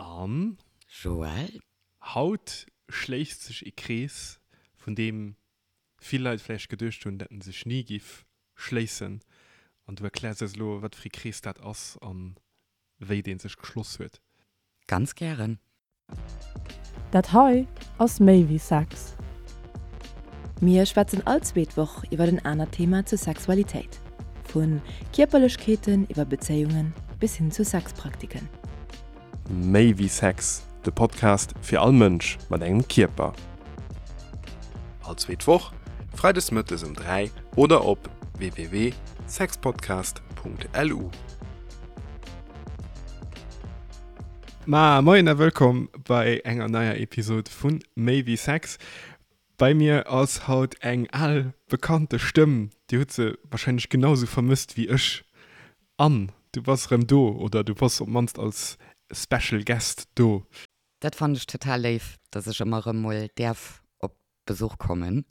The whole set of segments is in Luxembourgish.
An. Joël. Haut schléisst sech ee Krees, vun deem vill Leit vläicht geduecht hunn, dat en sech ni giff schléissen. An du erkläers eis elo, wat fir ee Krees dat ass an wéi dee sech geschloss huet. Ganz gären. Dat hei ass méi wéi Sex. Mir schwätzen all zweet Woch iwwer en anert Thema zur Sexualitéit. Vu Kierperlechkeeten iwwer Bezéiungen bis hin zu Sexpraktiken. Méi wéi Sex, de Podcast fir all Mënsch mat engem Kierper. All zweet Woch, freides mëttes um 3 oder op www.sexpodcast.lu. Ma moien a wëllkomm bei enger neier Episod vu Méi wéi Sex. Bei mir ass haut eng al bekannte Stëmm, Dir hutt se warscheinlech genau sou vermësst wéi ech. Anne, du bass erëm do, oder du bass op d'mannst als Special Guest do. Dat fannen ech total léif, dass ech ëmmer erëm mol däerf op Besuch kommen.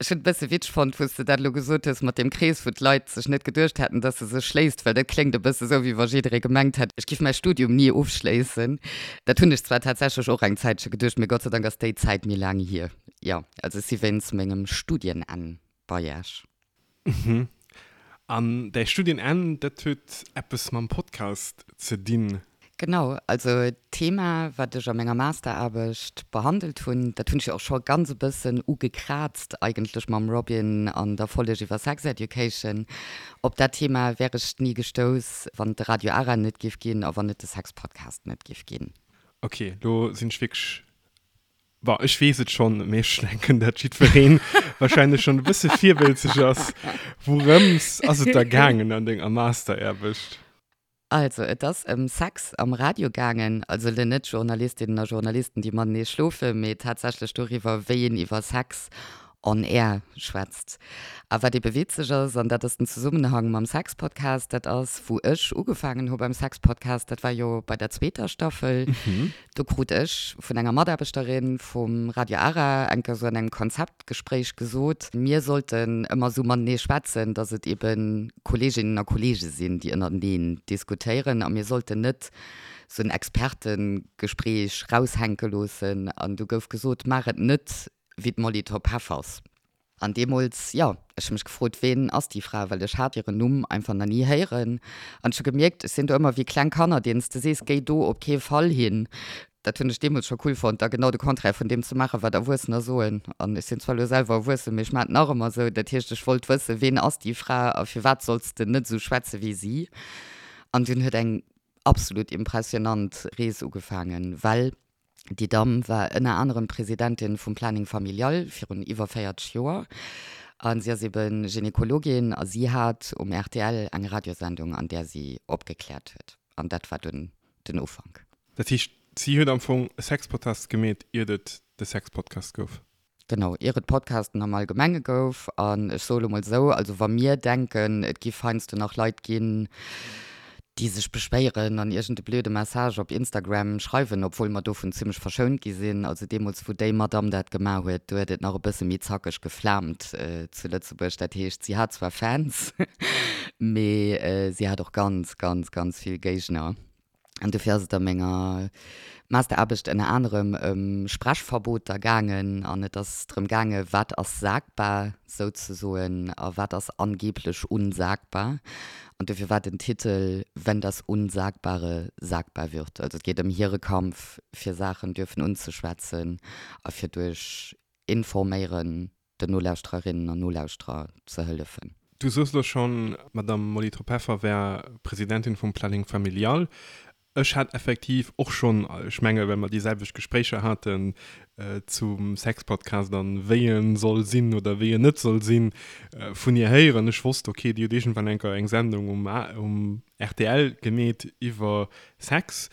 Ech hunn et e bësse witzeg fonnt, wou s de dat elo gesot hues mat deem Krees, wou d'Leit sech net geduecht hätten, dass e sech schléisst, well dat kléngt e bësse sou, wéi wa jidderee gemengt hätt, ech giff mäi Studium ni ofschléissen. Dat hunn ech zwar tatsächlech och eng Zäitche geduecht, mee Gott sei Dank ass déi Zäit méi laang hier. Jo, also ech si wéinst mengem Studienenn bei Iech. Mhm. An däi Studienenn, dat huet eppes mam Podcast ze dinn? Genau, also d'Thema, wat ech a menger Masteraarbecht behandelt hunn, dat hunn ech jo och scho ganz e bëssen ugekraazt eigentlech mam Robin an der Folleg iwwer Sex Education. Op dat Thema wär ech ni gestouss, wann et de Radio Ara net giff ginn a wann et de Sex-Podcast net giff ginn. Ok, lo sinn ech wierklech Bon, ech weess et schonn, mee ech denken, dat jiddweree wahrscheinlech schonn e bësse virwëlzeg ass. Wourëms ass et da gaangen an denger Masteraarbecht? Also, et ass ëm Sex am Radio gaangen. Also elo net Journalistinnen a Journalisten, déi matenee schlofen, mee tatsächlech doriwwer, wéi een iwwer Sex on air schwätzt. A wat ebe witzeg ass, an dat ass den Zesummenhang mam Sex-Podcast, dat ass, wou ech ugefaangen hu beim Sex-Podcast, dat war jo bei der zweeter Staffel, Do krut ech vun enger Mataarbechterin vum Radio Ara eng Kéier sou an engem Konzeptgespréich gesot, mir sollten ëmmer sou matenee schwätzen, datt et ebe Kolleeginnen a Kolleege sinn, déi ënnerteneen diskutéieren a mir sollten net sou en Expertengespréich raushänke loossen. An du gouf gesot, maach et net wéi d'Molly Topp-Heffers. An deemools, jo, ech hu mech gefrot, ween ass déi Fra, well ech hat hiren Numm einfach nach ni héieren. An ech hu gemierkt, ech sinn do ëmmer wéi kleng Kanner, deenen s de sees, géi do op kee Fall hin. Dat hunn ech deemools scho cool fonnt, da genau de Contraire vun deem ze maachen, wat Erwuessener soen. An ech sinn zwar elo selwer erwuessen, mee ech maachen et nach ëmmer esou. Dat heescht, ech wollt wëssen, ween ass déi Fra a firwat solls de net esou schwätze wéi si? An dunn huet eng absolut impressionant Rees ugefaangen, well Déi Damm war ënner anerem Presidentin vum Planning Familial virun iwwer 40 Joer a si ass ebe Gynekologin a si hat um rtl eng Radiosendung, an där si opgekläert huet. An dat war dunn den Ufank. Dat heescht, si huet am Fong e Sexpodcast gemeet, iert et de Sexpodcast gouf? Genau, ier et Podcasten am Allgemenge gouf. An ech soe lo mol esou, also wa mir denken, et giff heiansdo nach Leit ginn, déi sech beschwéieren an iergend e blöde Message op Instagram schreiwen, obwuel mer dovun zimmlech verschount gi sinn, also deemools wou déi Madamm dat gemaach huet, do huet et nach e bësse méi zackeg geflaamt zu Lëtzebuerg. Dat heescht, si hat zwar Fans, mee si hat och ganz, ganz, ganz vill Géigner. An dofir ass et a menger Masteraarbecht ënner anerem ëm Sprechverboter gaangen an et ass drëm gaange wat ass sagbar souzesoen a wat ass angeblech unsagbar. An dofir war den Titel Wenn das Unsagbare sagbar wird. Also et geet ëm hire Kampf fir Saachen dürfen unzeschwätzen a fir duerch Informéieren den Nolauschtererinnen an Nolauschterer ze hëllefen. Du soos elo schonn, d'Madame Molly Tropeffer wär Presidentin vum Planning Familial. Ech hat effektiv och schonn, ech menge well mer déi selwecht Gespréicher haten zum Sexpodcast an wéi en soll sinn oder wéi en net soll sinn, vun hir héieren. Ech wosst, okay, déi huet iergendwann eng Kéier eng Sendung um rtl gemeet iwwer Sex.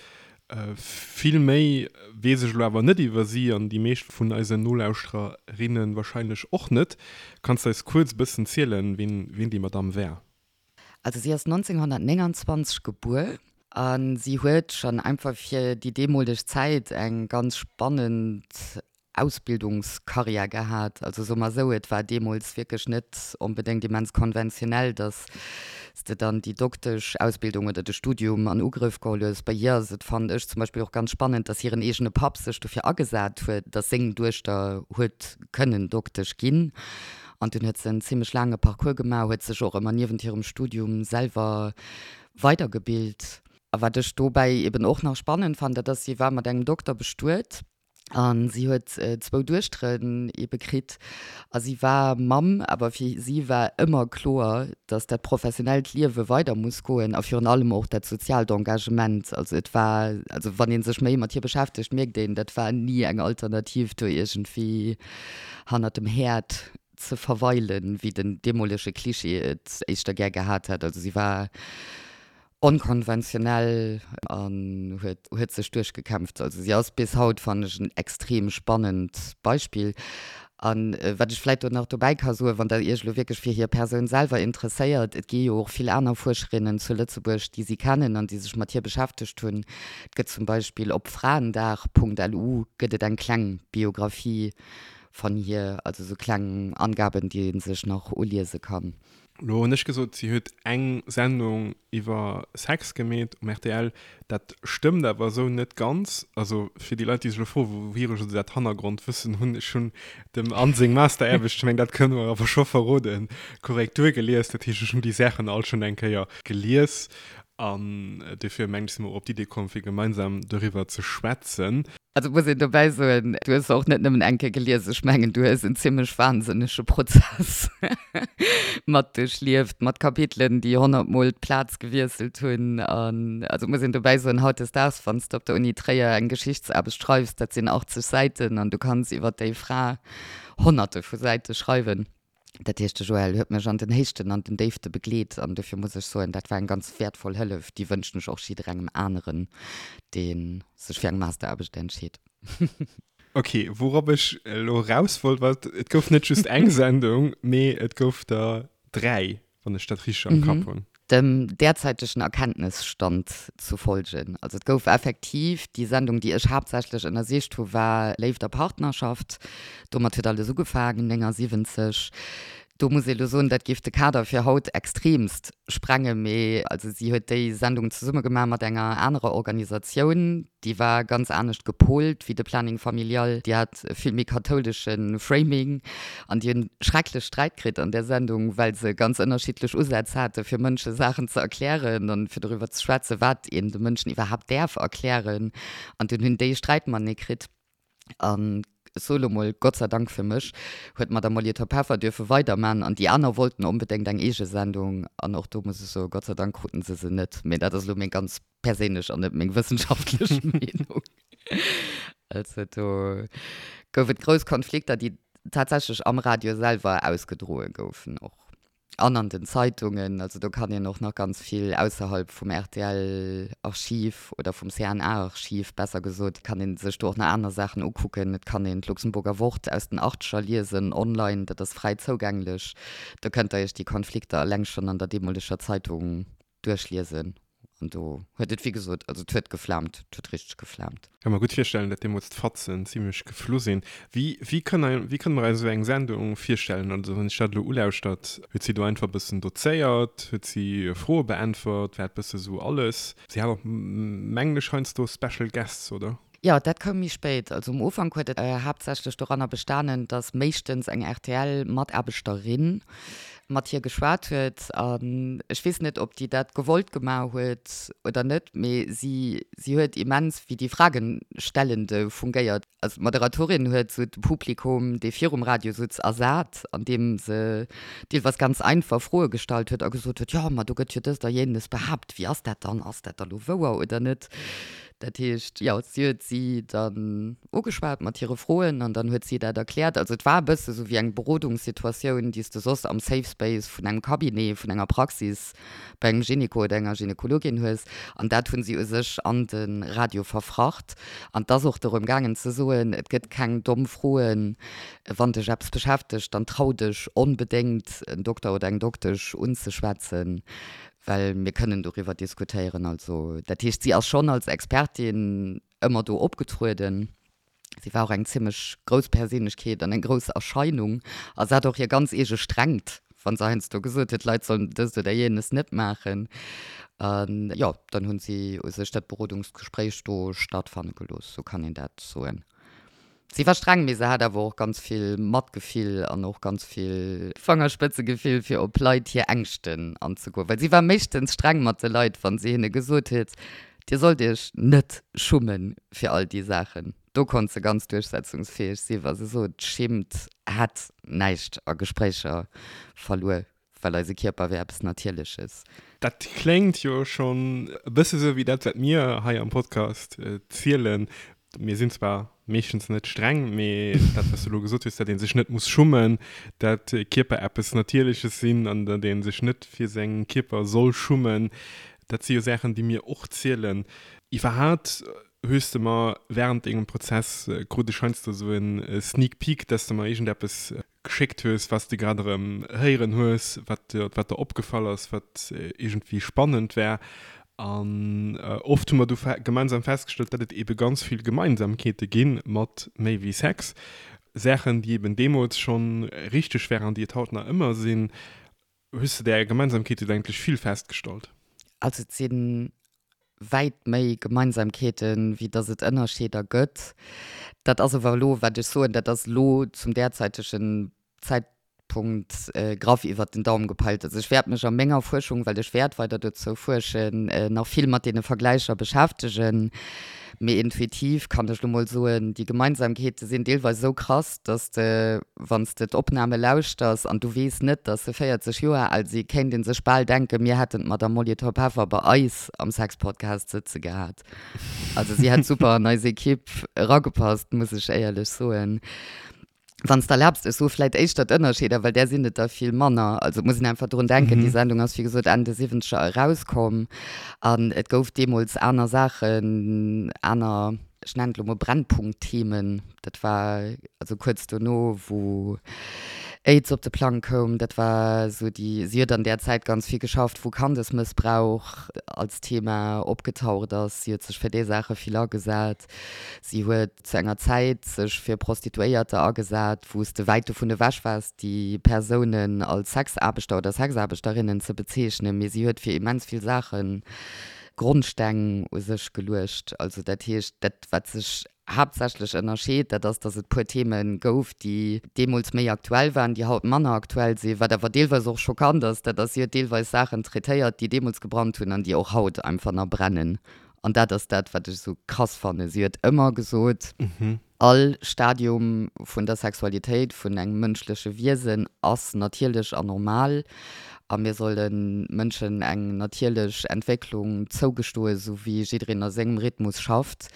Vill méi weess ech elo awer net iwwer si an déi meescht vun eisen Nolauschtererinne wahrscheinlech och net. Kanns de eis kuerz e bëssen zielen, wien déi Madamm war? Also si ass 1929 gebuer a si huet schonn einfach fir déi deemoleg Zäit eng ganz spannend. Ausbildungskarriär gehat. Also soe mer esou, et war deemools wierklech net onbedéngt immens konventionell, datt s de dann déi Dokteschausbildung oder de Studium an Ugrëff geholl hues. Bei hir ass et, fannen ech zum Beispill, och ganz spannend, datt hiren eegene Papp sech dofir agesat huet, datt seng Duechter huet kënnen Doktesch ginn. An dunn huet se en zimmlech laange Parcours gemaach, huet sech och ëmmer niewent hirem Studium selwer weidergebilt. A wat ech dobäi eben och nach spannend fannen, dat ass, si war mat engem Dokter bestuet a si huet zwou Duechteren ebe kritt a si war Mamm, awer fir si war ëmmer kloer, datt dat professionellt Liewe weider muss goen a virun allem och dat soziaalt Engagement. Also et war, also wann ee sech méi mat hir beschäftegt, mierkt een, dat war ni eng Alternativ do iergendwéi hannert dem Häerd ze verweilen, wéi den deemolege Klischee et éischter gär gehat hätt. Also si war onkonventionell an huet huet sech duerchgekämpft. Also si ass bis haut, fannen ech, en extrem spannend Beispill. An wat ech vläit do nach dobäi ka soen, wann Der Iech elo wierklech fir hir Persoun selwer interesséiert, et gi jo och vill aner Fuerscherinnen zu Lëtzebuerg, déi si kennen an déi sech mat hir beschäftegt hunn. Et gëtt zum Beispill op fraendag.lu gëtt et eng kleng Biographie van hir, also sou kleng Angaben, déi ee sech nach uliese kann. Lo hunn ech gesot, si huet eng Sendung iwwer Sex gemeet um rtl. Dat stëmmt awer esou net ganz. Also fir déi Leit, déi sech elo froen, wouhier ech esou dat Hannergrondwëssen hunn, ech hunn dem Anne seng Masteraarbecht, ech mengen, dat kënne mer awer scho verroden, Korrektur gelies. Dat heescht, ech hunn déi Saachen all schonn eng Kéier gelies. An dofir mengen ech, si mer och op d'Idee komm, fir gemeinsam doriwwer ze schwätzen. Also muss een dobäi soen, du hues se och net nëmmen eng Kéier gelies, ech mengen, du hues en zimmlech wahnsinnege Prozess mat duerchlieft, mat Kapitelen, déi honnertmol d'Plaz gewiesselt hunn. An also muss een dobäi soen, hautdesdaags, wann s de op der Uni Tréier eng Geschichtsaarbecht schreifs, dat sinn 80 Säiten an du kanns iwwer déi Fra Honnerte vu Säite schreiwen. Dat heescht, de Joël huet mech an den Héichten an den Déifte begleet an dofir muss ech soen, dat war eng ganz wäertvoll Hëllef. Déi wënschen ech och jidderengem aneren, dee sech fir eng Masteraarbecht entscheet. Ok, wourop ech elo eraus wollt, war, et gouf net just eng Sendung, mee et gouf der 3, wann ech dat richteg am Kapp hunn. Dem derzäitegen Erkenntnisstand zu folgen. Also et gouf effektiv, déi Sendung, déi ech haaptsächlech ënnersicht hu war Léift a Partnerschaft. Domat huet alles ugefaangen, 79. Do muss ee lo soen, dat géif de Kader fir haut extremst sprengen, mee also si huet déi Sendung zesumme gemaach mat enger anerer Organisatioun, Déi war ganz anescht gepolt wéi de Planning Familial. Déi hat e vill méi kathoulesche Framing an déi hunn schrecklech Sträit kritt an där Sendung, well se ganz ënnerschiddlech Usätz hate fir Mënsche Saachen ze erklären an fir doriwwer ze schwätzen, wat een de Mënschen iwwerhaapt däerf erklären. An dunn hunn déi Sträit matenee kritt. An ech soe lo mol, Gott sei Dank fir mech, huet d'Madame Molitor Peffer dierfe weiderman an déi aner wollten onbedéngt eng eege Sendung. An och do muss ech soen, Gott sei Dank kruten se se net. Mee dat ass elo meng ganz perséinlech an net meng wëssenschaftlech Meenung. Also do gouf et grouss Konflikter, déi tatsächlech am Radio selwer ausgedroe goufen och an an den Zeitungen. Also do kann een och nach ganz vill ausserhalb vum RTL-Archiv oder vum CNA-Archiv besser gesot, kann ee sech do och nach aner Saachen ukucken. Et kann een d'Luxemburger Wort aus den Achteger liesen online, dat ass fräi zougänglech. Do kënnt der iech déi Konflikter eleng schonn an der deemoleger Zeitung duerchliesen an do huet et wéi gesot, also et huet geflaamt, et huet richteg geflaamt. Ka mer gutt virstellen, dat deemools d'Fatzen zimlech geflu sinn. Wéi, wéi kënne, wéi kënne mer eis esou eng Sendung virstellen? Also wann ech dat elo ulauschtert, huet si do einfach e bëssen dozéiert, huet si Froe beäntwert, war et bësse sou alles? Si hat och mengen ech heiansdo Special Guests, oder? Jo, dat koum méi spéit. Also um Ufank huet et haaptsächlech doranner bestanen, datt méischtens eng RTL-Mataarbechterin mat hir geschwat huet. An ech weess net, ob déi dat gewollt gemaach huet oder net, mee si, si huet immens wéi déi Fragenstellende fungéiert. Also d'Moderatorin huet sou de Publikum, dee virum Radio sutz, ersat, andeem se deelweis ganz einfach Froe gestallt huet a gesot huet, jo, ma do gëtt jo dëst a jenes behaapt, wéi ass dat dann, ass dat da lo wouer oder net? Dat heescht, jo, si huet si dann ugeschwat mat hire Froen an dann huet si dat erkläert. Also et war e bësse sou wéi eng Berodungssituatioun, déi s de soss am Safe Space vun engem Cabinet, vun enger Praxis bei engem Gynéco oder enger Gynekologin hues. An dat hunn si u sech an de Radio verfracht. An et ass och dorëm gaangen ze soen, et gëtt keng domm Froen, wann dech eppes beschäftegt, dann trau dech onbedéngt en Dokter oder eng Doktesch unzeschwätzen, well mir kënnen doriwwer diskutéieren. Also dat heescht, si ass schonn als Expertin ëmmer do opgetrueden. Si war och eng zimmlech grouss Perséinlechkeet an eng grouss Erscheinung a se hat och hir ganz eege Strengt, wa se heiansdo gesot huet, d'Leit sollen dëst oder jenes net maachen. An jo, dann hunn si u sech dat Berodungsgespréich do stattfanne gelooss, sou kann een dat soen. Si war streng, mee se hat awer och ganz vill Matgefill an och ganz vill Fangerspëtzegefill, fir op Leit hir Ängschten anzegoen. Well si war meeschtens streng mat de Leit, wa si hinne gesot huet, Dir sollt iech net schummen fir all déi Saachen. Do konnt se ganz duerchsetzungsfäeg si wa se sot, Schimmt hätt näischt a Gespréicher verluer, well eise Kierper wär eppes Natierleches. Dat kléngt jo schonn e bësse sou wéi dat, wat mir hei am Podcast zielen. Mir sinn zwar meeschtens net streng, mee dat, wat s du elo gesot hues, datt ee sech net muss schummen, datt Kierper eppes Natierleches sinn an datt ee sech net fir seng Kierper soll schummen, dat si jo Saachen, déi mir och zielen. Iwwerhaapt hues de mer wärend dengem Prozess, krut ech heiansdo esou e Sneak Peek, datt s de mer iergendeppes geschéckt hues, wat s de grad erëm héieren hues, wat wat der opgefall ass, wat iergendwéi spannend war. An oft hu mer du gemeinsam festgestallt, datt et eebe ganz vill Gemeinsamkeete gi mat méi wéi Sex. Saachen, déi eeben deemools schonn richteg waren an déi et haut nach ëmmer sinn. Hues de där Gemeinsamkeete eigentlech vill festgestallt? Also et si wäit méi Gemeinsamkeeten, wéi datt et Ënnerscheeder gëtt. Dat ass awer elo, wat ech soen, dat ass elo zum därzeitegen Zäitpunkt graff iwwert den Daum gepeilt. Also ech wäert mech a menger Fuerschung, well ech wäert weider dozou fuerschen, nach vill mat deene Vergläicher beschäftegen. Mee intuitiv kann ech lo mol soen, déi Gemeinsamkeete sinn deelweis esou krass, dass de, wann s de d'Opname lauschters an du weess net, dass se 40 Joer al si, kéint ee sech bal denken, mir hätten d'Madame Molly Top-Heffer bei eis am Sexpodcast sëtze gehat. Also si hätt super an eis Ekipp eragepasst, muss ech éierlech soen. Wann s de erlaabs, ech soe vläit éischter d'Ënnerscheeder, well där sinn et der vill manner. Also et muss een einfach drun denken, déi Sendung ass wéi gesot Enn de Siwwenzeger erauskomm an et gouf deemools aner Saachen, aner, ech nennen et elo mol Brennpunktthemen. Dat war also kuerz dono, wou Aids op de Plang koum. Dat war esou déi, si huet an där Zäit ganz vill geschafft, wou Kandesmëssbrauch als Thema opgetaucht ass. Si huet sech fir déi Saache vill agesat. Si huet zu enger Zäit sech fir Prostituéierter agesat, wou s de wäit dovun ewech waars, déi Persounen als Sexaarbechter oder Sexaarbechterinnen ze bezeechnen. Mee si huet fir immens vill Saache Grondsteng u sech geluecht. Also dat heescht, dat wat sech haaptsächlech ënnerscheet, dat ass, datt et puer Theme gouf, déi deemools méi aktuell waren, déi haut manner aktuell sinn. Wat awer deelweis och schockant ass, dat ass, si huet deelweis Saachen traitéiert, déi deemools gebrannt hunn an déi och haut einfach nach brennen. An dat ass dat, wat ech esou krass fannen. Si huet ëmmer gesot, All Stadium vun der Sexualitéit vun engem mënschleche Wiesen ass natierlech an normal a mir solle Mënschen eng natierlech Entwécklung zougestoen, esou wéi jiddereen a sengem Rhythmus schafft.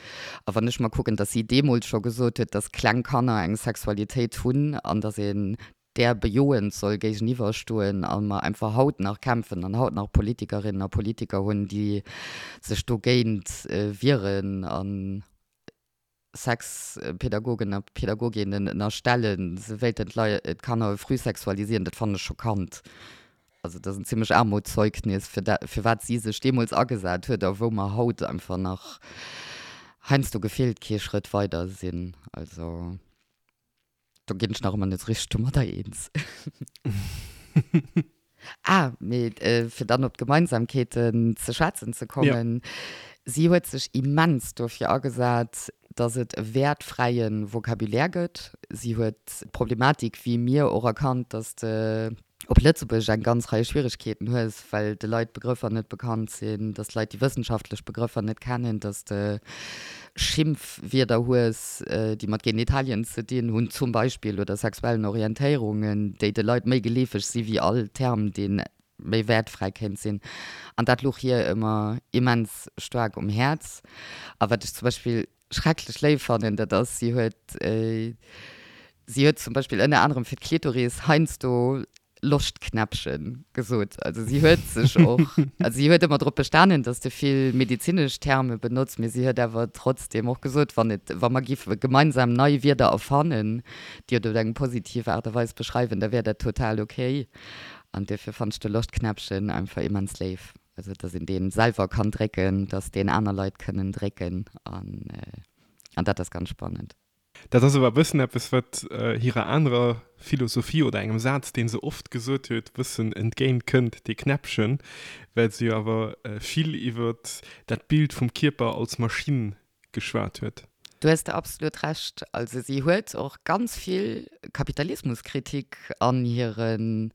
A wann ech mer kucken, dass si deemools scho gesot huet, dass kleng Kanner eng Sexualitéit hunn an dass een där bejoend soll géigeniwwer stoen a mer einfach haut nach kämpfen an haut nach Politikerinnen a Politiker hunn, déi sech dogéint wieren a Sexpädagogen a Pädagoginnen ënnerstellen, se wéilten d'Kanner früh sexualisieren, dat fannen ech schockant. Also dat ass en zimmlech Aarmutszeugnis fir dat, fir wat si sech deemools agesat huet a wou mer haut einfach nach heiansdo gefillt kee Schrëtt weider sinn. Also. Do ginn ech nach ëmmer net richteg domadder eens. Ah, mee fir dann op d'Gemeinsamkeeten ze schwätzen ze kommen, Si huet sech immens dofir agesat, datt et e wäertfräie Vocabulaire gëtt. Si huet d'Problematik, wéi mir och, erkannt, datt de op Lëtzebuergesch eng ganz Rei Schwieregkeeten hues, well de Leit d'Begrëffer net bekannt sinn, dass d'Leit déi wëssenschaftlech Begrëffer net kennen, dass de Schimpfwierder hues, déi mat Genitalien ze dinn hunn zum Beispill oder sexuellen Orientéierungen, déi de Leit méi geleefeg si wéi all Term, dee méi wäertfräi kéint sinn. An dat louch hir ëmmer immens staark um Häerz. A wat ech zum Beispill schrecklech léif fannen, dat ass, si huet, si huet zum Beispill ënner anerem fir d'Klitoris heiansdo Loschtknäppchen gesot. Also si huet sech och, also si huet ëmmer drop bestanen, datt de vill medezinesch Terme benotzt, mee si huet awer trotzdeem och gesot, wann et, wa mer giffe gemeinsam nei Wierder erfannen, déi et op eng positiv Aart a Weis beschreiwen, da wär dat total okay. An duerfir fannt ech de Loschtknäppchen einfach immens léif. Also dass een deen selwer kann drécken, dass deen aner Leit kënnen drécken an an dat ass ganz spannend. Dat ass awer e bëssen eppes, wat hirer anerer Philosophie oder engem Saz, dee se oft gesot huet, e bëssen entgéint kënnt, dee Knäppchen, well se jo awer vill iwwer dat Bild vum Kierper als Maschinn geschwat huet. Do hues de absolut Recht. Also si huet och ganz vill Kapitalismuskritik an hiren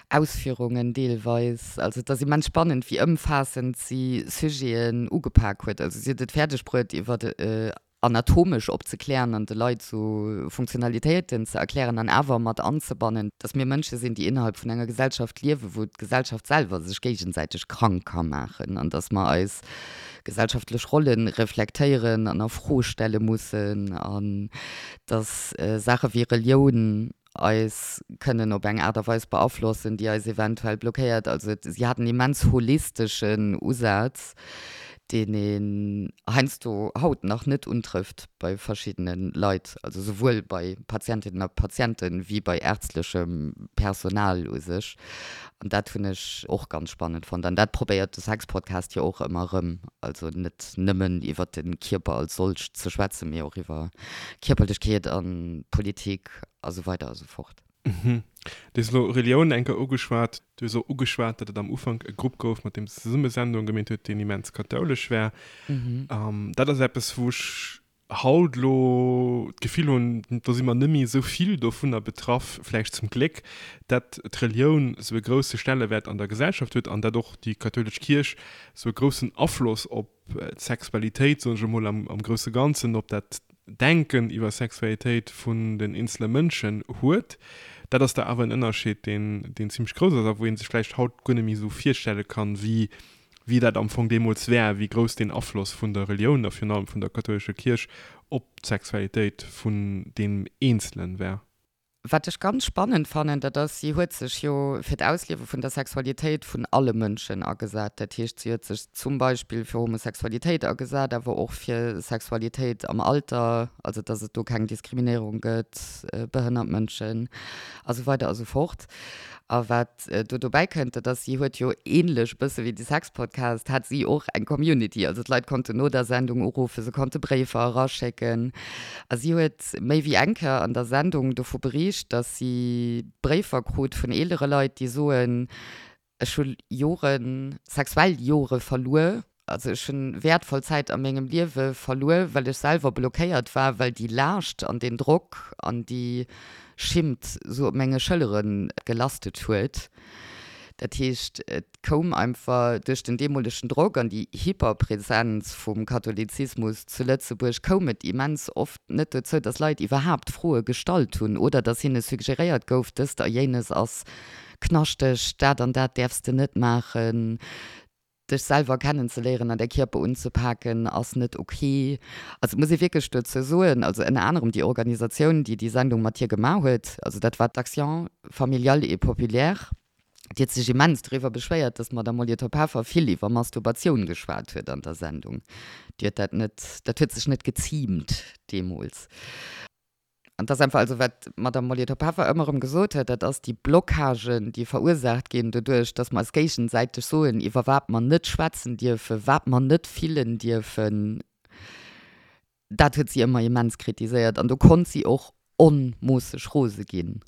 Ausführungen deelweis. Also et ass immens spannend, wéi ëmfaassend si Sujeten ugepak huet. Also si huet et fäerdeg bruet, iwwer anatomesch opzeklären an de Leit sou Funktionalitéiten ze erklären an awer mat anzebannen, dass mir Mënsche sinn, déi innerhalb vun enger Gesellschaft liewen, wou d'Gesellschaft selwer sech géigesäiteg krank ka maachen an dass mer eis gesellschaftlech Rolle reflektéieren an a Fro stelle mussen an dass Saache wéi Relioun eis kënnen op eng Aart a Weis beaflossen, déi eis eventuell blockéiert. Also si hat en immens holisteschen Usaz, deen een heiansdo haut nach net untrëfft bei verschiddene Leit, also souwuel bei Patientinnen a Patienten wéi bei ärztlechem Personal u sech. An dat hunn ech och ganz spannend fonnt. An dat probéiert de Sexpodcast jo och ëmmer erëm, also net nëmmen iwwer de Kierper als solcht ze schwätzen, mee och iwwer Kierperlechkeet a Politik a sou weider a sou fort. Du hues elo Relioun eng Kéier ugeschwat. Du hues och ugeschwat, datt et am Ufank e Grupp gouf, mat deem s de zesumme Sendunge gemeet huet, deen immens kathoulesch war. Dat ass eppes, wou ech haut elo d'Gefill hunn, do si mer net méi esou vill dovunner betraff, vläicht zum Gléck, datt d'Relioun esou e grousse Stellewäert an der Gesellschaft huet an datt och déi kathoulesch Kierch esou e groussen Afloss op d'Sexualitéit, soen ech emol am grousse Ganzen, op dat Denken iwwer Sexualitéit vun den eenzele Mënschen huet. Dat ass da awer en Ënnerscheed, deen, deen zimlech grouss ass a wou ee sech vläicht haut guer net méi esou virstelle kann, wéi, wéi dat am Fong deemools war, wéi grouss deen Afloss vun der Relioun a virun allem vun der kathoulescher Kierch op d'Sexualitéit vun deem Eenzelen war. Wat ech ganz spannend fannen, dat ass, si huet sech jo fir d'Ausliewe vun der Sexualitéit vun alle Mënschen agesat. Dat heescht, si huet sech zum Beispill fir Homosexualitéit agesat, awer och fir Sexualitéit am Alter, also datt et do keng Diskriminéierung gëtt, behënnert Mënschen a sou weider a sou fort. A wat do dobäi kënnt, dat ass, si huet jo ähnlech e bësse wéi de Sexpodcast, hat si och eng Community. Also d'Leit konnten no der Sendung uruffen, se konnte Bréifer eraschécken. A si huet méi wéi eng Kéier an der Sendung dovu beriicht, datt si Bréifer krut vun eelere Leit, déi soen, Ech hu Joren, sexuell Jore verluer, Also ech hunn wäertvoll Zäit a mengem Liewe verluer, well ech selwer blockéiert war, well déi Laascht an deen Drock an déi Schimmt sou op menge Schëllere gelastet huet. Dat heescht, et koum einfach duerch den deemolegen Drock an déi Hyperpräsenz vum Katholizismus zu Lëtzebuerg koum et immens oft net dozou, dass Leit iwwerhaapt Froe gestallt hunn oder dass hinne suggeréiert gouf, dëst a jéines ass knaschteg, dat an dat däerfs de net maachen. Dech selwer kennenzeléieren an däi Kierper unzepaken ass net ok. Also et muss ee wierklech dozou soen, also ënner anerem déi Organisatioun, déi déi Sendung mat hir gemaach huet, also dat war d'Action familiale et populaire, déi huet sech immens doriwwer beschwéiert, datt d'Madame Molitor-Peffer vill iwwer Masturbatioun geschwat huet an der Sendung. Déi huet dat net, dat huet sech net geziimt deemools. An dass einfach, also wat d'Madame Molitor-Peffer ëmmer erëm gesot huet, dat ass déi Blockagen, déi verursaacht ginn doduerch, dass mer eis géigesäiteg soen, iwwer wat mer net schwätzen dierfen, wat mer net fillen dierfen, dat huet si ëmmer immens kritiséiert. An do konnt si och onmoosseg rose ginn.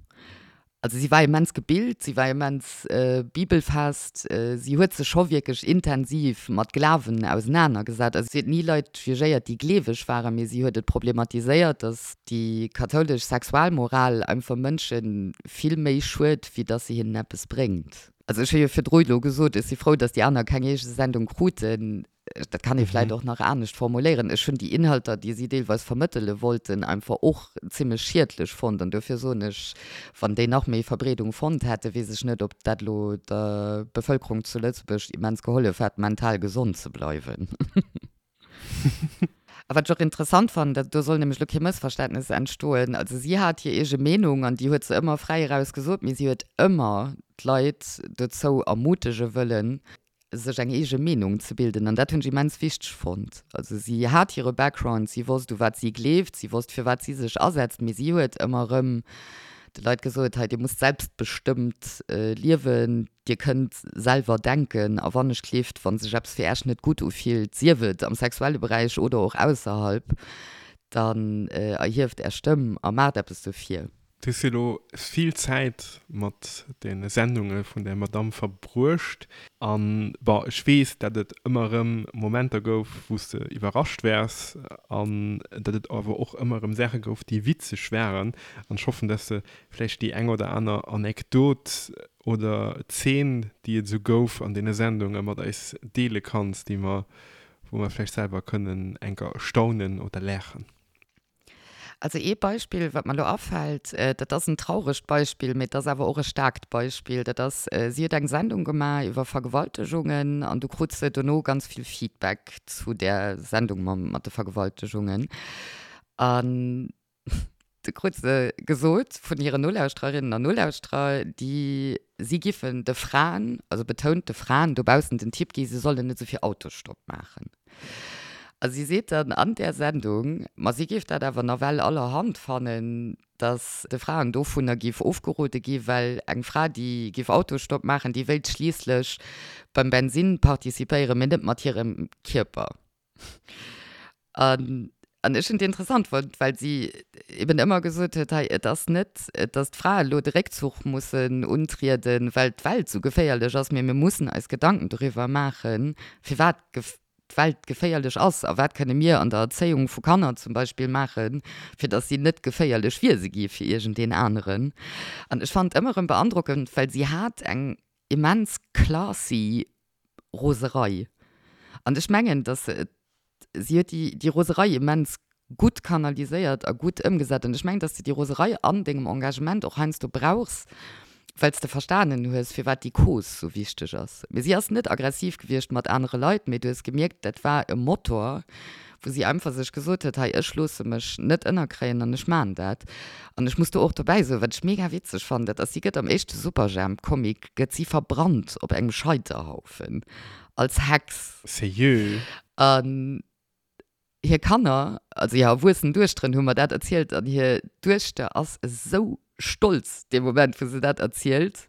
Also si war immens gebilt, si war immens bibelfest, si huet sech scho wierklech intensiv mat Glawen ausenanergesat. Also si huet ni Leit jugéiert, déi gleeweg waren, mee si huet et problematiséiert, datt déi kathoulesch Sexualmoral einfach Mënsche vill méi schued, wéi datt se hinnen eppes bréngt. Also ech hu jo virdru elo gesot, ech si frou, datt déi aner keng eege Sendung kruten. Dat kann ee vläit och nach anescht formuléieren. Ech hunn déi Inhalter, déi si deelweis vermëttele wollten, einfach och zimlech schiedlech fonnt. An dofir soen ech, wann déi nach méi Verbreedung fonnt hätten, weess ech net, ob dat elo der Bevëlkerung zu Lëtzebuerg immens gehollef hätt, mental gesond ze bleiwen. A wat ech och interessant fannen, dat do soll nämlech elo kee Mëssverständnes entstoen, also si hat hir eege Meenung an déi huet se ëmmer fräi eraus gesot, mee si huet ëmmer d'Leit dozou ermutege wëllen, sech eng eege Meenung ze bilden an dat hunn ech immens wichteg fonnt. Also si hat hire Background, si wosst u wat si gleeft, si wosst fir wat si sech asetzt, mee si huet ëmmer erëm de Leit gesot, hei dir musst selbstbestëmmt liewen, dir kënnt selwer denken a wann ech gleeft, wa sech eppes fir Äech net gutt ufillt, sief et am sexuelle Beräich oder och ausserhalb. Dann erhieft Är Stëmm a maacht eppes dofir. Du hues jo elo vill Zäit mat de Sendunge vun där Madamm verbruecht. An, bon, ech weess, dat et ëmmer erëm Momenter gouf, wou s de iwwerrascht waars an dat et awer och ëmmer erëm Saache gouf, déi witzeg waren. An ech hoffen, dass de vläicht déi eng oder aner Anekdot oder Zeen, déi et esou gouf an deene Sendunge mat eis deele kanns, déi mer, wou mer vläicht selwer kënnen enker staunen oder laachen. Also ee Beispill, wat mer elo afält, dat ass en trauregt Beispill, mee et ass awer och e staarkt Beispill, dat ass, si huet eng Sendung gemaach iwwer Vergewaltegungen an du krut se dono ganz vill Feedback zu där Sendung mat de Vergewaltegungen. An du krut se gesot vun hiren Nolauschtererinnen an Nolauschterer, déi si giffen de Fraen, also betount de Fraen dobaussen den Tipp gi, se sollen net esou vill Autostopp maachen. A si seet dann an där Sendung, ma si géif dat awer nawell allerhand fannen, datt de Fraen dovunner géif ofgerode gi, well eng Fra, déi géif Autostopp maachen, déi wéilt schliisslech beim Bensinn participéieren, mee net mat hirem Kierper. An an ech hunn et interessant fonnt, well si eben ëmmer gesot huet, hei, et ass net, datt d'Frae elo de Réckzuch mussen untrieden, well d'Welt esou geféierlech ass, mee mir mussen eis Gedanken doriwwer maachen, firwat d'Welt geféierlech ass a wat kënne mir an der Erzéiung vu Kanner zum Beispill maachen, fir datt si net geféierlech Wiese gi fir iergendeen aneren. An ech fannen et ëmmer erëm beandrockend, well si hat eng immens classy Roserei. An ech mengen, datt se et, si huet déi, déi Roserei immens gutt kanaliséiert a gutt ëmgesat. An ech mengen, datt s de déi Roserei an dengem Engagement och heiansdo brauchs, well s de verstanen hues, firwat déi Cause sou wichteg ass. Mee si ass net aggressiv gewiescht mat anere Leit, mee du hues gemierkt, dat war e Motor, wou si einfach sech gesot huet, hei, ech loosse mech net ënnerkréien an ech maan dat. An ech muss do och dobäi soen, wat ech mega witzeg fannen, dat ass, si gëtt am éischte Superjhemp-Comic gëtt si verbrannt op engem Scheiterhaufen als Hex. Sérieux? An hir Kanner, also hir erwuessen Duechteren hu mer dat erzielt an hir Duechter ass esou stolz dee Moment, wou se dat erzielt,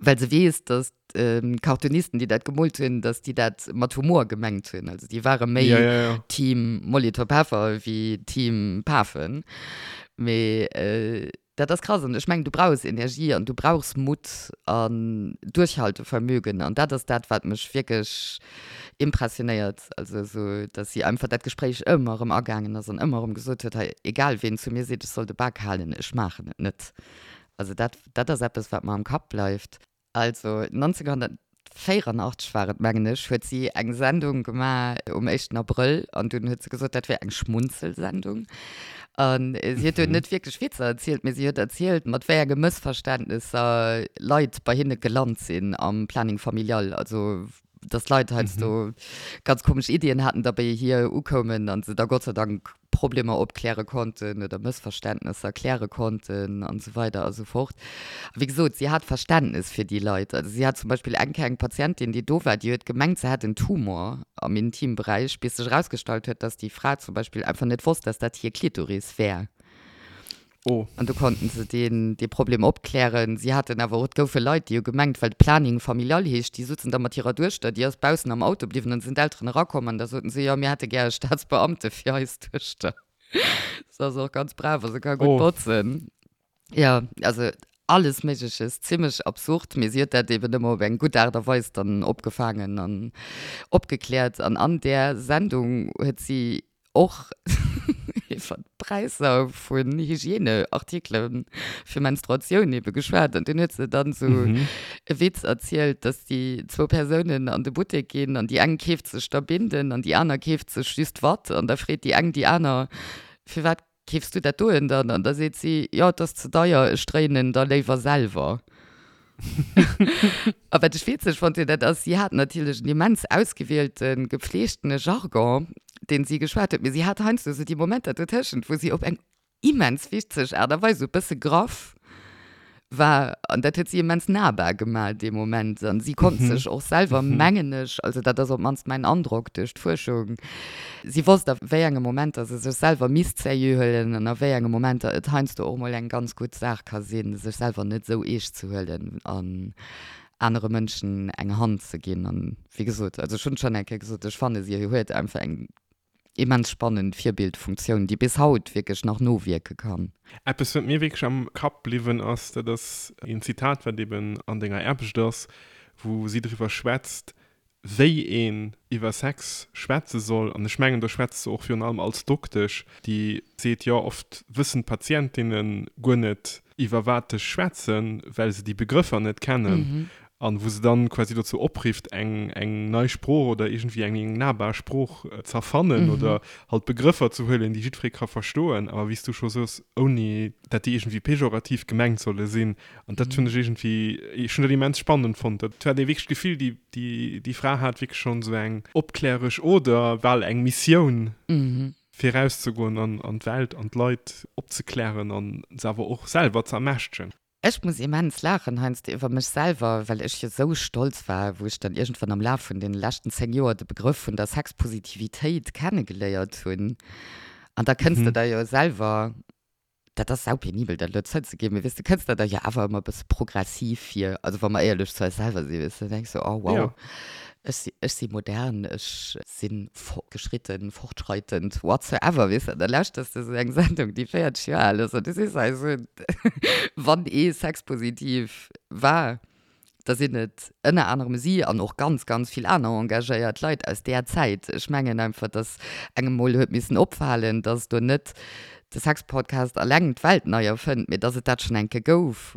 well se weess, dass d'Cartoonisten, déi dat gemoolt hunn, dass déi dat mat Humor gemengt hunn. Also déi ware méi ja, ja, ja. Team Molitor Peffer wéi Team Pafen. Mee äh, Dat ass krass an ech mengen, du brauchs Energie an du brauchs Mutt an Duerchhaltevermögen an dat ass dat, wat mech wierklech impressionéiert. Also esou, dass si einfach dat Gespréich ëmmer erëm agaangen ass an ëmmer erëm gesot huet, hei, egal ween zu mir seet, ech soll de Bak halen, ech maachen et net. Also dat, dat ass eppes, wat mer am Kapp bleift. Also 1984 war et, mengen ech, huet si eng Sendung gemaach um éischten Abrëll an dunn huet se gesot, dat wär eng Schmunzelsendung. An si huet do net wierklech Witzer erzielt, mee si huet erzielt, mat wéi enge Mëssverständnesser Leit bei hinne gelant sinn am Planning familial. Also dass Leit heiansdo ganz komesch Iddien haten, da bei hir ukoumen an se da Gott sei Dank Problemer opkläre konnten oder Mëssverständnesser kläre konnten an esou weider a sou fort. A wéi gesot, si hat Verständnes fir déi Leit. Also si hat zum Beispill eng Kéier eng Patientin, déi do war, déi huet gemengt, se hätt en Tumor am Intimberäich, bis sech erausgestallt huet, dass déi Fra zum Beispill einfach net wosst, dass dat hir Klitoris wär. Oh. An do konnten se deen, dee Problem opklären. Si haten awer och, et goufe Leit, déi hu gemengt, well de Planning familial heescht, déi sutzen da mat hirer Duechter, déi ass baussen am Auto bliwwen an da sinn d'Elteren erakomm an da soten se, jo, mir hätte gär e Staatsbeamte fir eis Duechter. Se ass och ganz brav a se ka gutt Oh. botzen. Jo, also alles Méigleches, zimmlech absurd, mee si huet dat eben ëmmer op eng gutt Aart a Weis dann opgefaangen an opgekläert. An an där Sendung huet si och iwwer d'Präisser vun Hygieneartikele fir Menstruatioun ebe geschwat. An dunn huet se dann esou e Witz erzielt, dass déi zwou Persounen an de Buttek ginn an déi eng keeft sech da Binden an déi aner keeft sech just Watt. An da freet déi eng déi aner, Firwat keefs du dat doen dann? An da seet si, Jo, et ass ze deier, ech dréinen en da léiwer selwer. A wat ech witzeg fonnt hunn, dat ass, si hat natierlech en immens ausgewielten, gepflegtene Jargon, deen si geschwat huet, mee si hat heiansdo esou déi Momenter dotëschent, wou si op eng immens witzeg Aart a Weis, esou e bësse graff war. An dat huet si immens nahbar gemaach dee Moment. An si konnt sech och selwer, mengen ech, also dat ass op d'mannst mäin Androck duerch d'Fuerschung, si wosst a wéi enge Momenter se sech selwer misst sérieux huelen an a wéi enge Momenter et heiansdo och mol eng ganz gutt Saach ka sinn, sech selwer net esou eescht ze huelen an anere Mënschen eng Hand ze ginn. An wéi gesot, also ech hunn et schonn eng Kéier gesot, ech fanne si huet einfach eng. Immens spannend Virbildfunktioun, déi bis haut wierklech nach nowierke kann. Eppes, wat mir wierklech am Kapp bliwwen ass, dat ass een Zitat, wat eben an denger Aarbecht ass, wou si driwwer schwätzt, wéi een iwwer Sex schwätze soll. An ech mengen, do schwätzt se och virun allem als Doktesch, déi seet, jo, oft wëssen d'Patientinne guer net, iwwer wat ech schwätzen, well se déi Begrëffer net kennen. An wou se dann quasi dozou oprifft, eng, eng nei Sprooch oder iergendwéi eng, eng nahbar Sprooch z'erfannen oder halt Begrëffer ze huelen, déi jiddweree ka verstoen, awer wéi s du scho soos, ouni dat déi iergendwéi pejorativ gemengt solle sinn. An dat hunn ech iergendwéi, ech hunn dat immens spannend fonnt. Dat hat ee wierklech d'Gefill, déi, déi, déi Fra hat wierklech schonn esou eng opkläresch Oder bal eng Missioun, fir erauszegoen an, an d'Welt an d'Leit opzeklären an se awer och selwer ze ermächtegen. Ech muss immens laachen heiansdo iwwer mech selwer, well ech jo sou stolz war, wou ech dann iergendwann am Laf vun deene leschten 10 Joer de Begrëff vun der Sexpositivitéit kennegeléiert hunn. An da kënns de der jo selwer, dat ass saupenibel dat elo zouzeginn, mee weess de, kënns der der jo awer ëmmer e bësse progressiv vir, also wa mer éierlech zu eis selwer sinn, weess de, da denks de, oh wow, ech si, ech si modern, ech sinn fortgeschritten, fortschreitend, whatsoever, weess de, an da lauschters de sou eng Sendung, déi 40 Joer al ass, an du sees hei sou, wann ee sexpositiv war, da sinn et ënner anerem si an och ganz, ganz vill aner engagéiert Leit aus där Zäit. Ech mengen einfach, dass engem mol huet missen opfalen, dass do net de Sexpodcast alleng d'Welt nei erfënnt, mee dass et dat schonn eng Kéier gouf.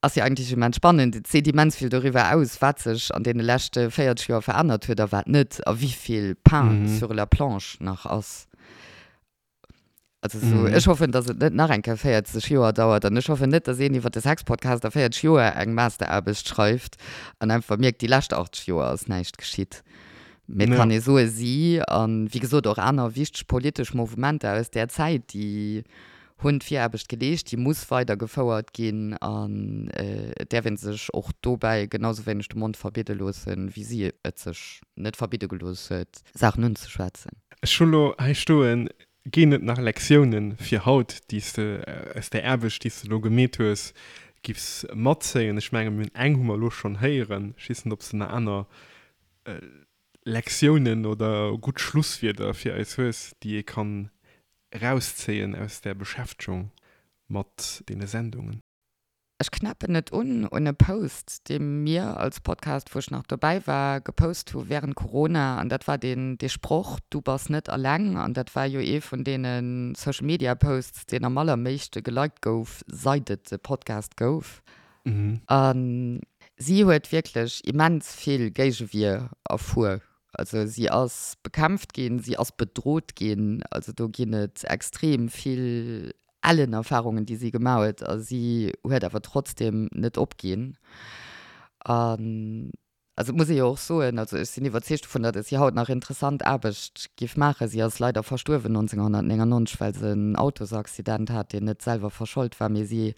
Ass jo eigentlech immens spannend. Et seet immens vill doriwwer aus, wat sech an deene leschte 40 Joer verännert huet a wat net, a wéi vill Pain sur la planche nach ass. Also sou, ech hoffen, datt et net nach eng Kéier 40 Joer dauert an ech hoffen net, datt een iwwer de Sexpodcast a 40 Joer eng Masteraarbecht schreift an einfach mierkt, déi lescht 80 Joer ass näischt geschitt. Mee et kann ee soe si, a wéi gesot och aner wichteg politesch Mouvementer aus där Zäit, déi hunn d'Viraarbecht geleescht, déi muss weider gefouert ginn an et däerf ee sech och dobäi genau sou wéineg de Mond verbidde loossen, wéi si et sech net verbidde gelooss huet, Saachen unzeschwätzen. Ech hu lo hei stoen, Ginn et nach Lektiounen fir haut, déi s de aus där Aarbecht, déi s de lo gemeet hues, giffs matzéien? Ech mengen, mir hunn eng hu mer elo schonn héieren. Ech weess net, ob s de nach aner Lektiounen oder gutt Schlusswierder fir eis hues, déi ee kann erauszéien aus där Beschäftegung mat deene Sendungen. Ech knäppen et un un e Post, dee mir als Podcast, wou ech nach dobäi war, gepost hu während Corona. An dat war deen, dee Sproch, Du bass net alleng. An dat war jo ee vun deene Social Media Posts, deen am allerméischte geliked gouf, seit et de Podcast gouf. A si huet wierklech immens vill Géigewier erfuer. Also si ass bekämpft ginn, si ass bedrot ginn. Also do ginn et extrem vill ellen Erfarungen, déi si gemaach huet. A si huet awer trotzdem net opginn. An also et muss ee jo och soen, also ech sinn iwwerzeegt dovun, datt si haut nach interessant Aarbecht giff maachen. Si ass leider verstuerwen 1999, well se en Autosaccident hat, deen net selwer verschold war. Mee si,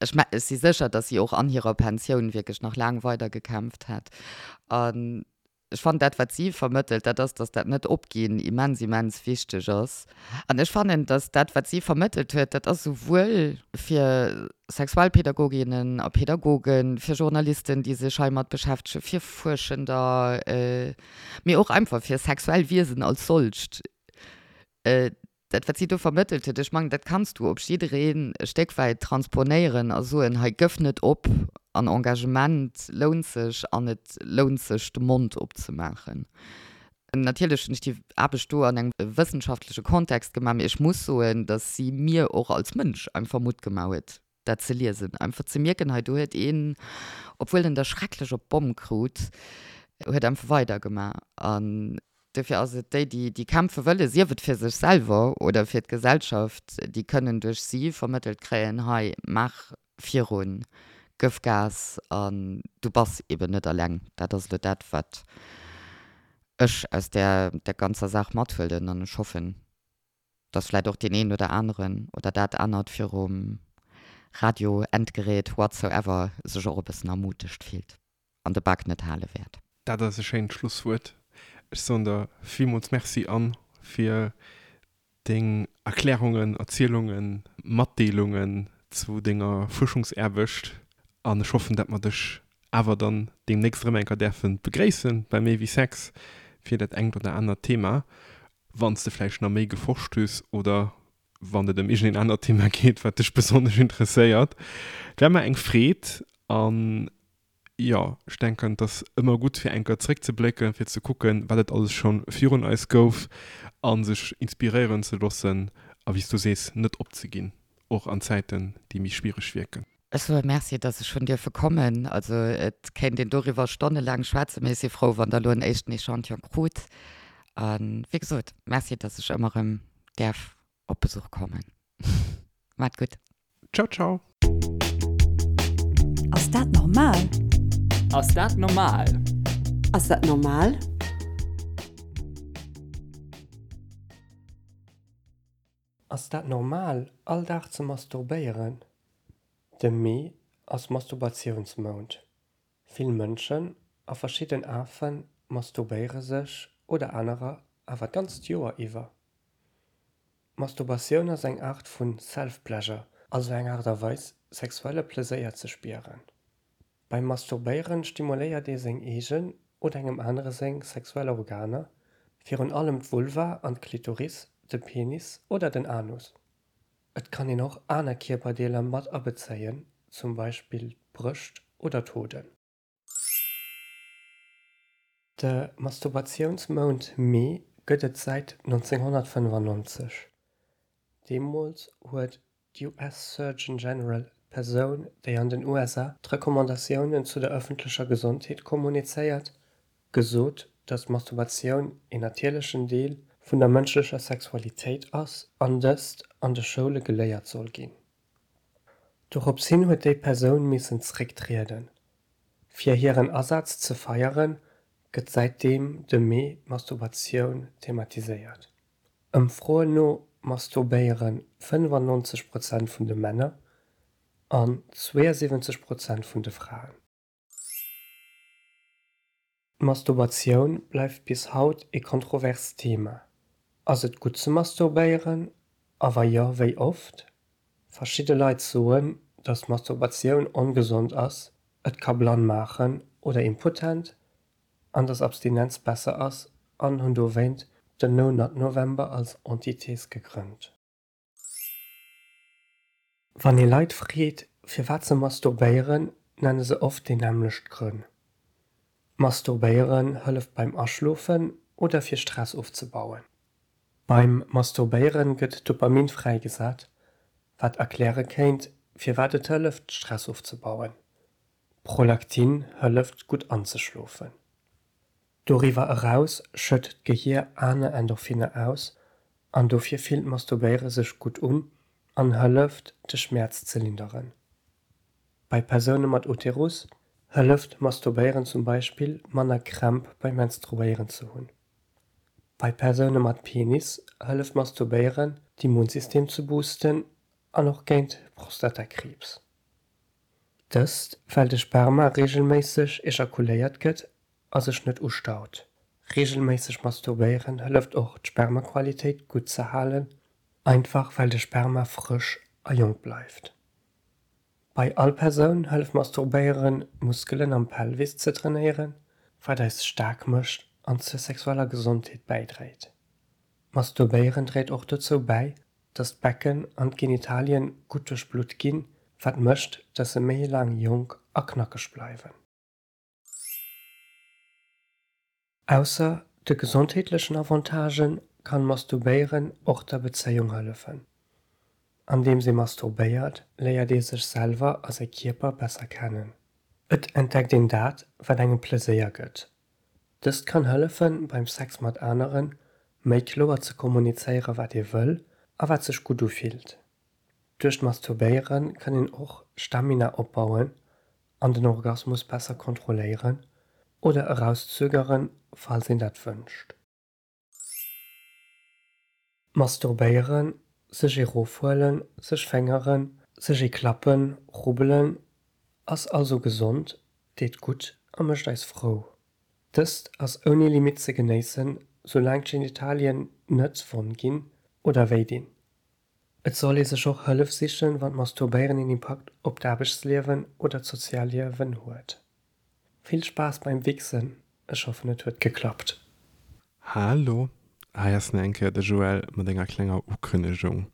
ech ech si sécher, datt si och an hirer Pensioun wierklech nach laang weider gekämpft hätt. An Ech fannen dat wat si vermëttelt, dat ass, datt dat Net-Opginn immens, immens wichteg ass. An ech fannen, datt dat wat si vermëttelt huet, dat ass souwuel fir Sexualpädagoginnen a Pädagogen, fir Journalisten, déi sech heimat beschäftegen, fir Fuerschender, mee och einfach fir sexuell Wiesen als solcht, Dat, wat si do vermëttelt huet, ech mengen, dat kanns du op jiddereen e Stéck wäit transponéieren a soen, hei gëff net op an Engagement lount sech an et lount sech, de Mond opzemaachen. Natierlech hunn ech déi Aarbecht do an engem wëssenschaftleche Kontext gemaach, mee ech muss soen, datt si mir och als Mënsch einfach Mutt gemaach huet, dat ze liesen, einfach ze mierken, hei do huet een, obwuel en der schrecklech op d'Bomm krut, huet einfach weidergemaach. An dofir ass et déi, déi, déi kämpfe wëllen, sief et fir sech selwer oder fir d'Gesellschaft, déi kënnen duerch si vermëttelt kréien, hei maach virun, gëff Gas an du bass eben net eleng. Dat ass elo dat, wat ech aus där, där ganzer Saach mathuelen an ech hoffen, dass vläit och deen een oder aneren oder dat anert virum Radio, Endgerät, whatsoever sech och e bëssen ermutegt fillt an de Bak net hale wäert. Dat ass e schéint Schlusswuert. Ech soen der villmools Merci, Anne, fir deng Erklärungen, Erzielungen, Matdeelungen zu denger Fuerschungsaarbecht an ech hoffen, dat mer dech awer dann deemnächst erëm eng Kéier däerfe begréissen bei Méi wéi Sex. Fir dat engt oder anert Thema, wann s de vläicht nach méi geforscht hues oder wann et ëm iergendeen anert Thema geet, wat dech besonnesch interesséiert. Et war mer eng Freed an jo, ech denken, et ass ëmmer gutt, fir eng Kéier zréckzeblécken, fir ze kucken, wat et alles scho virun eis gouf a sech inspiréieren ze loossen a wéi s du sees, net opzeginn, och an Zäiten, déi méi schwiereg wierken. Ech soe Merci, dass ech hunn dierfe kommen. Also et kéint een doriwwer stonnelaang schwätzen, mee ech si frou, wann Der elo en éischten Echantillon krut. A wéi gesot, Merci, dass ech ëmmer erëm däerf op Besuch kommen. Maacht gutt. Ciao, ciao. Ass dat normal? Ass dat normal? Ass dat normal? Ass dat normal, all Dag ze masturbéieren? De Mee ass Masturbatiounsmount. Vill Mënschen a verschidden Afe masturbéiere sech oder anerer awer d'ganzt Joer iwwer. Masturbatioun ass eng Aart vu Self-Pleasure, also eng Aart a Weis, sexuelle Pleséier ze spieren. Beim Masturbéieren stimuléiert ee seng eegen oder engem anere seng sexuell Organer, virun allem d'Vulva an d'Klitoris, de Penis oder den Anus. Et kann een och aner Kierperdeeler mat abezéien, zum Beispill d'Brëscht oder d'Hoden. De Masturbatiounsmount Mee gëtt et säit 1995. Deemools huet d'US Surgeon General, d'Persoun, déi an den USA d'Recommandatiounen zu der ëffentlecher Gesondheet kommunizéiert, gesot, datt d'Masturbatioun een natierlechen Deel vun der mënschlecher Sexualitéit ass an dëst an de Schoule geléiert soll ginn. Dorops hin huet déi Persoun missen zrécktrieden. Fir hiren Asaz ze feieren, gëtt säitdeem de Mee d'Masturbatioun thematiséiert. Ëmfroen no masturbéiere 95 Prozent vun de Männer an 72 Prozent vun de Fraen. D'Masturbatioun bleift bis haut ee kontroverst Thema. Ass et gutt ze masturbéieren a wa jo, wéi oft? Verschidde Leit soen, datt Masturbatioun ongesond ass, et ka blann maachen oder impotent an dass Abstinenz besser ass an hunn dowéint den No Nut November als Antithese gegrënnt. Wann ee Leit freet firwat se masturbéieren, nenne se oft déi nämmlecht Grënn. Masturbéieren hëlleft beim Aschlofen oder fir Stress ofzebauen. Beim Masturbéieren gëtt Dopamin fräigesat, wat erkläre kéint firwat et hëlleft Stress ofzebauen. Prolaktin hëlleft gutt anzeschlofen. Doriwwer eraus schëtt d'Gehier aner Endorphinner aus an dofir fillt Masturbéiere sech gutt un an hëlleft de Schmäerz ze linderen. Bei Persoune mat Uterus hëlleft Masturbéieren zum Beispill manner Krämp beim Menstruéieren ze hunn. Bei Persoune mat Penis hëlleft Masturbéieren d'Immunsystem ze boosten an och géint Prostatakriibs. Dëst well de Sperma reegelméisseg ejakuléiert gëtt a sech net ustaut. Reegelméisseg masturbéieren hëlleft och d'Spermaqualitéit gutt ze halen, einfach well de Sperma frësch a jonk bleift. Bei all Persoun hëlleft masturbéieren d'Muskelen am Pelvis ze trainéieren, wat eis staark mécht an zur sexueller Gesondheet bäidréit. Masturbéieren dréit och dozou bäi, dass d'Becken an d'Genitalien gutt duerchblutt ginn, wat mécht, dass se méi laang jonk a knackeg bleiwen. Ausser de gesondheetlechen Avantagen kann Masturbéieren och der Bezéiung hëllefen. Andeems ee masturbéiert, léiert ee sech selwer a säi Kierper besser kennen. Et entdeckt een dat, wat engem Pleséier gëtt Dëst kann hëllefen, beim Sex mat aneren méi kloer ze kommunizéieren, wat ee wëll a wat sech gutt ufillt. Duerch d'Masturbéiere kann een och Stamina opbauen an den Orgasmus besser kontrolléieren oder erauszögeren, falls een dat wënscht. Masturbéieren, sech ee rofhuelen, sech féngeren, sech ee klappen, rubbelen, ass also gesond, deet gutt a mécht eis frou. Dëst ass ouni Limit ze genéissen, soulaang d'Genitalien net wonn ginn oder wéi dinn. Et soll ee sech och Hëllef sichen, wann d'Masturbéieren een Impakt op d'Aarbechtsliewen oder d'Sozialliewen huet. Vill Spaass beim Wichsen, ech hoffen et huet geklappt. Hallo, hei ass nach eng Kéier de Joël mat enger klenger Ukënnegung.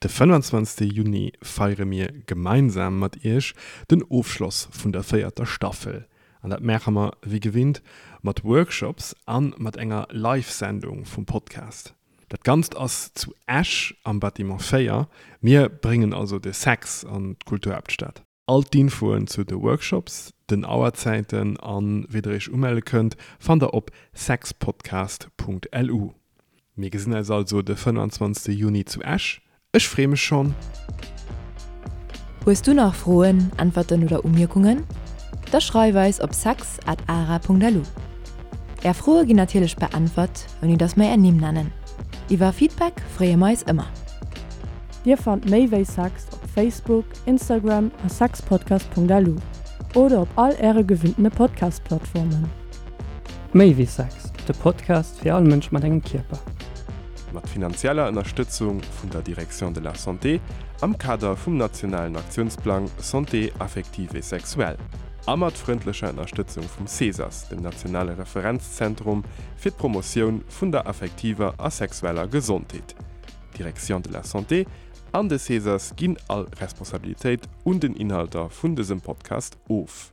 De 25. Juni feiere mir gemeinsam mat iech den Ofschloss vun der véierter Staffel. An dat maache mer wéi gewinnt mat Workshops an mat enger Live-Sendung vum Podcast. Dat Ganzt ass zu Esch am Bâtiment 4. Mir bréngen also de Sex an d'Kulturhaaptstad. All d'Infoen zu de Workshops, den Auerzäiten an wéi der iech umelle kënnt, fannt der op sexpodcast.lu. Mir gesinn eis also de 25 Juni zu Esch. Ech free mech schonn! Hues du nach Froen, Äntwerten oder Umierkungen? Da schreif eis op sex at ara.lu. Är Froe ginn natierlech beäntwert, ouni dass mer är Nimm nennen. Iwwer Feedback freeë mer eis ëmmer. Dir fannt méi wéi Sex op Facebook, Instagram a sexpodcast.lu oder op all äre gewinntene Podcast-Plattformen. Méi wéi Sex, de Podcast fir all Mënsch mat engem Kierper. Mat finanzieller Ënnerstëtzung vun der Direction de la Santé am Kader vum nationalen Aktiounsplang Santé affective et sexuelle a mat frëndlecher Ënnerstëtzung vum CESAS, dem nationale Referenzzentrum fir d'Promotioun vun der affektiver a sexueller Gesondheet. D'Direction de la Santé an de CESAS ginn all Responsabilitéit un den Inhalter vun dësem Podcast of.